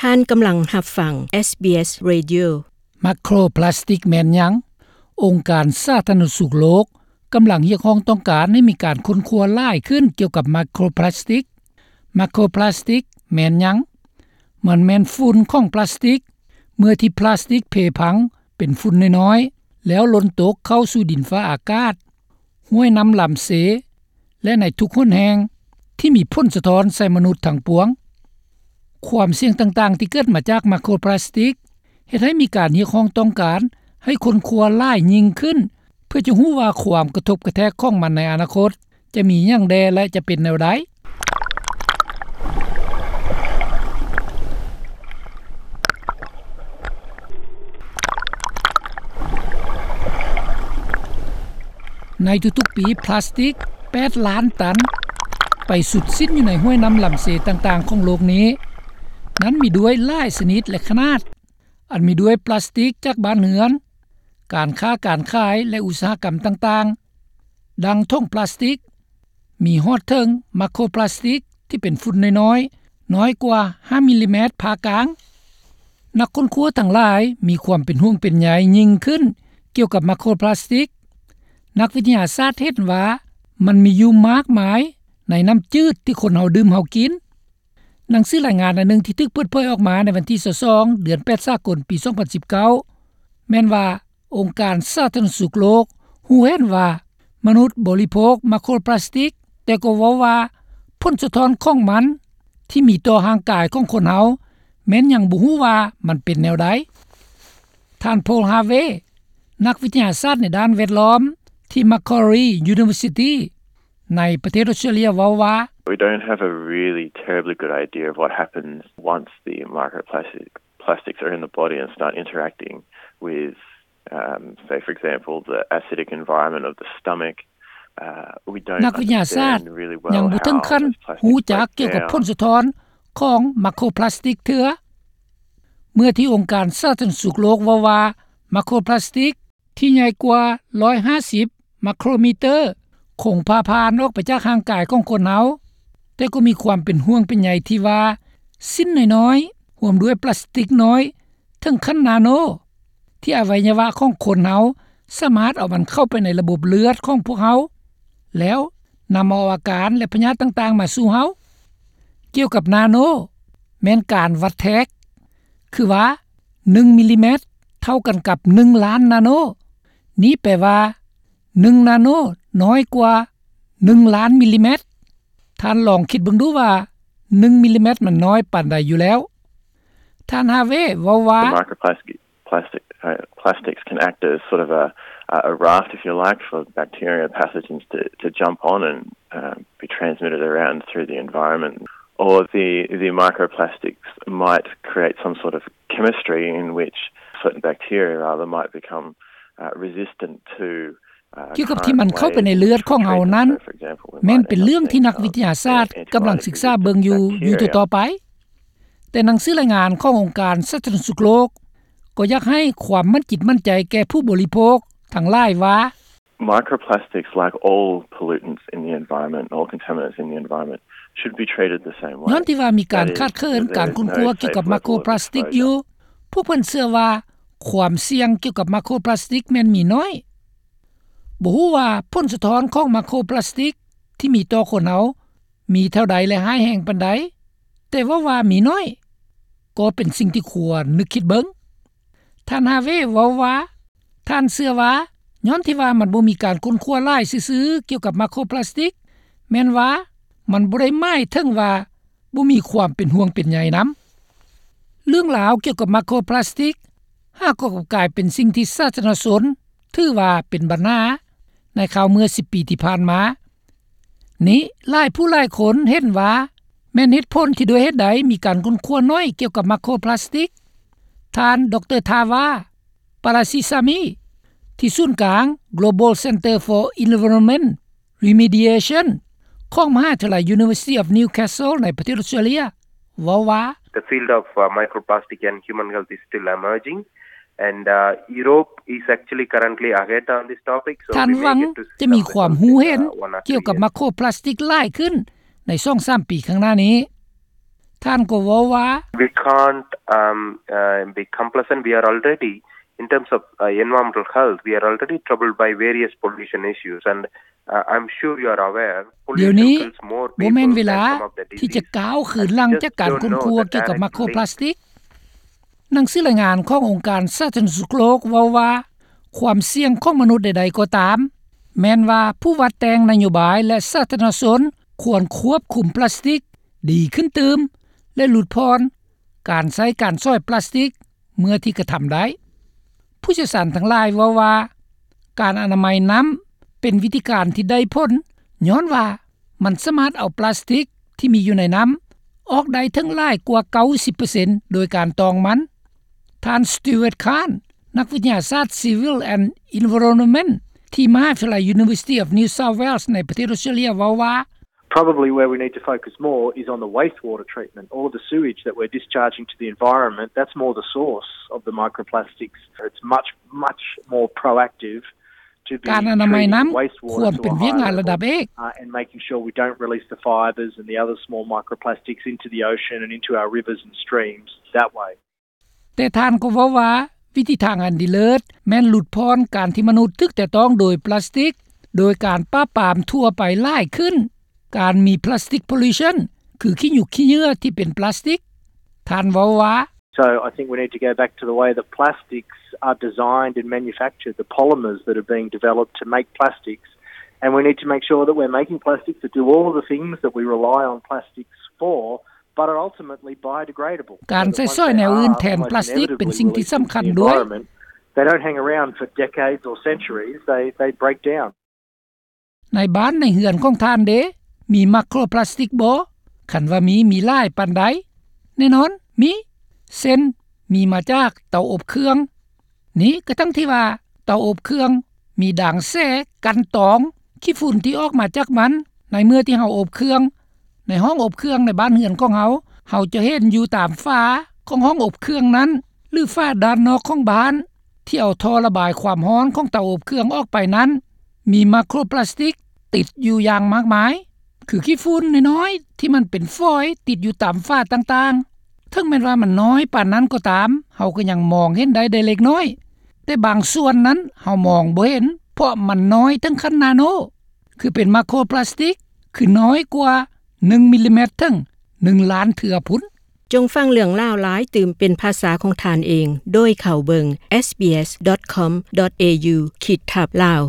ທ່ານກຳລັງຮັບຟັງ ເອສບີເອສ Radio. ໄມໂຄຣພລາສຕິກແມ່ນຫຍັງ? ອົງການສາທາລະນະສຸກໂລກກຳລັງຮຽກຮ້ອງຕ້ອງການໃຫ້ມີການຄົ້ນຄວ້າຫຼາຍຂຶ້ນກ່ຽວກັບໄມໂຄຣພລາສຕິກ. ໄມໂຄຣພລາສຕິກແມ່ນຫຍັງ? ມັນແມ່ນຝຸ່ນຂອງພລາສຕິກ. ເມື່ອທີ່ພລາສຕິກເພພັງເປັນຝຸ່ນນ້ອຍໆ ແລ້ວຫຼົ່ນຕົກເຂົ້າສູ່ດິນຟ້າອາກາດ, ຫ້ວຍນ້ຳລຳເຊ ແລະ ໃນທຸກຫົນແຫ່ງທີ່ມີຜົນສະທ້ອນໃສ່ມະນຸດທັງປວງ. ຄວາມສ່ຽງຕ່າງໆທີ່ເກີດມາຈາກໄມໂຄຣພລາສຕິກ ເຮັດໃຫ້ມີການຮຽກຮ້ອງຕ້ອງການໃຫ້ຄົ້ນຄວ້າຫຼາຍຍິ່ງຂຶ້ນ ເພື່ອຈະຮູ້ວ່າຄວາມກະທົບກະແທກຂອງມັນໃນອະນາຄົດຈະມີຫຍັງແດ່ ແລະ ຈະເປັນແນວໃດ. ໃນທຸກໆປີ ພລາສຕິກແປດລ້ານຕັນໄປສຸດສິ້ນຢູ່ໃນຫ້ວຍນ້ຳລຳເຊຕ່າງໆຂອງໂລກນີ້. ນັ້ນມີດ້ວຍຫຼາຍຊະນິດ ແລະ ຂະໜາດ, ອັນມີດ້ວຍພລາສຕິກຈາກບ້ານເຮືອນ, ການຄ້າການຂາຍ ແລະ ອຸດສາຫະກຳຕ່າງໆ, ດັ່ງຖົງພລາສຕິກ, ມີຮອດເຖິງໄມໂຄຣພລາສຕິກທີ່ເປັນຝຸ່ນນ້ອຍໆ ນ້ອຍກວ່າຫ້າມິລລີແມັດຜ່າກາງ. ນັກຄົ້ນຄວ້າທັງຫຼາຍມີຄວາມເປັນຫ່ວງເປັນໃຍຍິ່ງຂຶ້ນກ່ຽວກັບໄມໂຄຣພລາສຕິກ. ນັກວິທະຍາສາດເຫັນວ່າມັນມີຢູ່ມາກມາຍໃນນ້ຳຈືດທີ່ຄົນເຮົາດື່ມເຮົາກິນ. ໜັງສືລາຍງານອັນໜຶ່ງທີ່ຖືກເປີດເຜີຍອອກມາໃນວັນທີຊາວສອງ ເດືອນແປດສາກົນ ປີສອງພັນສິບເກົ້າ ແມ່ນວ່າ ອົງການສາທາລະນະສຸກໂລກຮູ້ເຫັນວ່າມະນຸດບໍລິໂພກໄມໂຄຣພລາສຕິກ, ແຕ່ກໍເວົ້າວ່າຜົນສະທ້ອນຂອງມັນທີ່ມີຕໍ່ຮ່າງກາຍຂອງຄົນເຮົາແມ່ນຍັງບໍ່ຮູ້ວ່າມັນເປັນແນວໃດ. ທ່ານ ໂພລ ຮາເວ ນັກວິທະຍາສາດໃນດ້ານແວດລ້ອມທີ່ Macquarie University ໃນປະເທດອອສເຕຣເລຍເວົ້າວ່າ We don't have a really terribly good idea of what happens once the microplastic plastics are in the body and start interacting with, um, say, for example, the acidic environment of the stomach. Uh, we don't ນັກວິທະຍາສາດຍັງບໍ່ເຖິງຂັ້ນຮູ້ຈັກກ່ຽວກັບຜົນສະທ້ອນຂອງໄມໂຄຣພລາສຕິກເທື່ອ. ເມື່ອທີ່ອົງການສາທາລະນະສຸກໂລກເວົ້າວ່າໄມໂຄຣພລາສຕິກ ທີ່ໃຫຍ່ກວ່າຮ້ອຍຫ້າສິບໄມໂຄຣມີເຕີ ຄົງຜ່າຜ່ານອອກໄປຈາກຮ່າງກາຍຂອງຄົນເຮົາ, ແຕ່ກໍມີຄວາມເປັນຫ່ວງເປັນໃຍທີ່ວ່າ ຊິ້ນນ້ອຍໆ ຮ່ວມດ້ວຍພລາສຕິກນ້ອຍເຖິງຂັ້ນນາໂນ ທີ່ອະໄວຍະວະຂອງຄົນເຮົາສາມາດເອົາມັນເຂົ້າໄປໃນລະບົບເລືອດຂອງພວກເຮົາ ແລ້ວນຳເອົາອາການ ແລະ ພະຍາດຕ່າງໆມາສູ່ເຮົາ. ກ່ຽວກັບນາໂນ ແມ່ນການວັດແທກ ຄືວ່າ ໜຶ່ງມິລລີແມັດເທົ່າກັນກັບໜຶ່ງລ້ານນາໂນ. ນີ້ແປວ່າ ໜຶ່ງນາໂນນ້ອຍກວ່າໜຶ່ງລ້ານມິລລີແມັດ. ທ່ານລອງຄິດເບິ່ງດູວ່າໜຶ່ງມິລລີແມັດມັນນ້ອຍປານໃດຢູ່ແລ້ວ. ທ່ານ ຮາເວ ເວົ້າວ່າ The microplastic, plastic, uh, plastics can act as sort of a, a raft, if you like, for bacteria and pathogens to, to jump on and, uh, be transmitted around through the environment. Or the, the microplastics might create some sort of chemistry in which certain bacteria, rather, might become, uh, resistant to, uh, ກ່ຽວກັບທີ່ມັນເຂົ້າໄປໃນເລືອດຂອງເຮົານັ້ນ ແມ່ນເປັນເລື່ອງທີ່ນັກວິທະຍາສາດກຳລັງສຶກສາເບິ່ງຢູ່ ຢູ່ຕໍ່ໆໄປ. ແຕ່ໜັງສືລາຍງານຂອງອົງການສາທາລະນະສຸກໂລກ ກໍຢາກໃຫ້ຄວາມໝັ້ນຈິດໝັ້ນໃຈແກ່ຜູ້ບໍລິໂພກທັງຫຼາຍວ່າ Microplastics, like all pollutants in the environment, all contaminants in the environment, should be treated the same way. ຍ້ອນທີ່ວ່າມີການຂາດເຂີນການຄົ້ນຄວ້າກ່ຽວກັບໄມໂຄຣພລາສຕິກຢູ່, ພວກເພິ່ນເຊື່ອວ່າຄວາມສ່ຽງກ່ຽວກັບໄມໂຄຣພລາສຕິກແມ່ນມີໜ້ອຍ. ບໍ່ຮູ້ວ່າຜົນສະທ້ອນຂອງໄມໂຄຣພລາສຕິກທີ່ມີຕໍ່ຄົນເຮົາມີເທົ່າໃດ ແລະ ຮ້າຍແຮງປານໃດ, ແຕ່ເວົ້າວ່າມີໜ້ອຍ ກໍເປັນສິ່ງທີ່ຄວນນຶກຄິດເບິ່ງ. ທ່ານ ຮາເວ ເວົ້າວ່າ ທ່ານເຊື່ອວ່າ ຍ້ອນທີ່ວ່າມັນບໍ່ມີການຄົ້ນຄວ້າຫຼາຍຊື່ໆກ່ຽວກັບໄມໂຄຣພລາສຕິກ, ແມ່ນວ່າມັນບໍ່ໄດ້ໝາຍເຖິງວ່າບໍ່ມີຄວາມເປັນຫ່ວງເປັນໃຍນຳ. ເລື່ອງລາວກ່ຽວກັບໄມໂຄຣພລາສຕິກ ຫາກໍກັບກາຍເປັນສິ່ງທີ່ສາທາລະນະຊົນຖືວ່າເປັນບັນຫາໃນຄາວເມື່ອສິບປີທີ່ຜ່ານມາ. ນີ້ຫຼາຍຜູ້ຫຼາຍຄົນເຫັນວ່າແມ່ນເຫດຜົນທີ່ດ້ວຍເຫດໃດມີການຄົ້ນຄວ້າໜ້ອຍກ່ຽວກັບໄມໂຄຣພລາສຕິກ. ທ່ານ ດຣ ທາວາ ປາລາຊິຊາມີ ທີ່ສູນກາງ Global Center for Environment Remediation ຂອງມະຫາວິທະຍາໄລ University of Newcastle ໃນປະເທດອອສເຕຣເລຍ ເວົ້າວ່າ The field of, uh, microplastic and human health is still emerging. And, uh, Europe is actually currently ahead on this topic, so ທ່ານຫວັງຈະມີຄວາມຮູ້ເຫັນກ່ຽວກັບໄມໂຄຣພລາສຕິກຫຼາຍຂຶ້ນໃນສອງສາມປີຂ້າງໜ້ານີ້. ທ່ານກໍເວົ້າວ່າ We can't, um, uh, be complacent. We are already, in terms of, uh, environmental health, we are already troubled by various pollution issues, and, uh, I'm sure you are aware, ດຽວນີ້ pollution kills more people than some of the disease. ບໍ່ແມ່ນເວລາທີ່ຈະກ້າວຄືນຫຼັງຈາກການຄົ້ນຄວ້າກ່ຽວກັບໄມໂຄຣພລາສຕິກ. ໜັງສືລາຍງານຂອງອົງການສາທາລະນະສຸກໂລກເວົ້າວ່າ ຄວາມສ່ຽງຂອງມະນຸດໃດໆກໍຕາມ ແມ່ນວ່າຜູ້ວາດແຕ່ງນະໂຍບາຍ ແລະ ສາທາລະນະຊົນຄວນຄວບຄຸມພລາສຕິກດີຂຶ້ນຕື່ມ ແລະ ຫຼຸດຜ່ອນການໃຊ້ການສອຍພລາສຕິກເມື່ອທີ່ກະທຳໄດ້. ຜູ້ຊ່ຽວຊານທັງຫຼາຍເວົ້າວ່າ ການອະນາໄມນ້ຳເປັນວິທີການທີ່ໄດ້ຜົນ ຍ້ອນວ່າ ມັນສາມາດເອົາພລາສຕິກທີ່ມີຢູ່ໃນນ້ຳອອກໄດ້ເຖິງຫຼາຍກວ່າເກົ້າສິບເປີເຊັນໂດຍການຕອງມັນ. ທ່ານ Stuart Khan ນັກວິທະຍາສາດ Civil and Environment ທີ່ມະຫາວິທະຍາໄລ University of New South Wales ໃນປະເທດອອສເຕຣເລຍເວົ້າວ່າ Probably where we need to focus more is on the wastewater treatment, all of the sewage that we're discharging to the environment, that's more the source of the microplastics. It's much, much more proactive ການອະນາໄມນ້ຳຄວນເປັນວຽກງານລະດັບເອກ and making sure we don't release the fibres and the other small microplastics into the ocean and into our rivers and streams that way. ແຕ່ທ່ານກໍເວົ້າວ່າ ວິທີທາງອັນດີເລີດແມ່ນຫຼຸດຜ່ອນການທີ່ມະນຸດຖືກແຕະຕ້ອງໂດຍພລາສຕິກ ໂດຍການປາບປາມທົ່ວໄປຫຼາຍຂຶ້ນ ການມີ plastic pollution ຄືຂີ້ຫຍຸກຂີ້ເຫຍື້ອທີ່ເປັນພລາສຕິກ. ທ່ານເວົ້າວ່າ So I think we need to go back to the way that plastics are designed and manufactured, the polymers that are being developed to make plastics, and we need to make sure that we're making plastics that do all of the things that we rely on plastics for, but are ultimately biodegradable. ການໃຊ້ສອຍແນວອື່ນແທນພລາສຕິກເປັນສິ່ງທີ່ສຳຄັນດ້ວຍ. They don't hang around for decades or centuries, they, they break down. ໃນບ້ານໃນເຮືອນຂອງທ່ານເດ ມີໄມໂຄຣພລາສຕິກບໍ່? ຄັນວ່າມີ ມີຫຼາຍປານໃດ? ແນ່ນອນ ມີ ເຊັ່ນ ມີມາຈາກເຕົາອົບເຄື່ອງ. ນີ້ກະທັງທີ່ວ່າເຕົາອົບເຄື່ອງມີດາງແສກັນຕອງຂີ້ຝຸ່ນທີ່ອອກມາຈາກມັນ ໃນເມື່ອທີ່ເຮົາອົບເຄື່ອງ. ໃນຫ້ອງອົບເຄື່ອງໃນບ້ານເຮືອນຂອງເຮົາ ເຮົາຈະເຫັນຢູ່ຕາມຝາຂອງຫ້ອງອົບເຄື່ອງນັ້ນ ຫຼື ຝາດ້ານນອກຂອງບ້ານ ທີ່ເອົາທໍ່ລະບາຍຄວາມຮ້ອນຂອງເຕົາອົບເຄື່ອງອອກໄປນັ້ນ ມີໄມໂຄຣພລາສຕິກຕິດຢູ່ຢ່າງມາກມາຍ ຄືຂີ້ຝຸ່ນນ້ອຍໆ ທີ່ມັນເປັນຝອຍຕິດຢູ່ຕາມຝາຕ່າງໆ. ເຖິງແມ່ນວ່າມັນນ້ອຍປານນັ້ນກໍຕາມ ເຮົາກໍຍັງມອງເຫັນໄດ້ໄດ້ເລັກນ້ອຍ, ແຕ່ບາງສ່ວນນັ້ນເຮົາມອງບໍ່ເຫັນ ເພາະມັນນ້ອຍເຖິງຂັ້ນນາໂນ ຄືເປັນໄມໂຄຣພລາສຕິກ ຄືນ້ອຍກວ່າໜຶ່ງມິລລີແມັດເຖິງໜຶ່ງລ້ານເທື່ອພຸ້ນ. ຈົ່ງຟັງເລື່ອງລາວຫຼາຍຕື່ມເປັນພາສາຂອງທ່ານເອງ ໂດຍເຂົ້າເບິ່ງ sbs.com.au ຂີດທັບ Lao.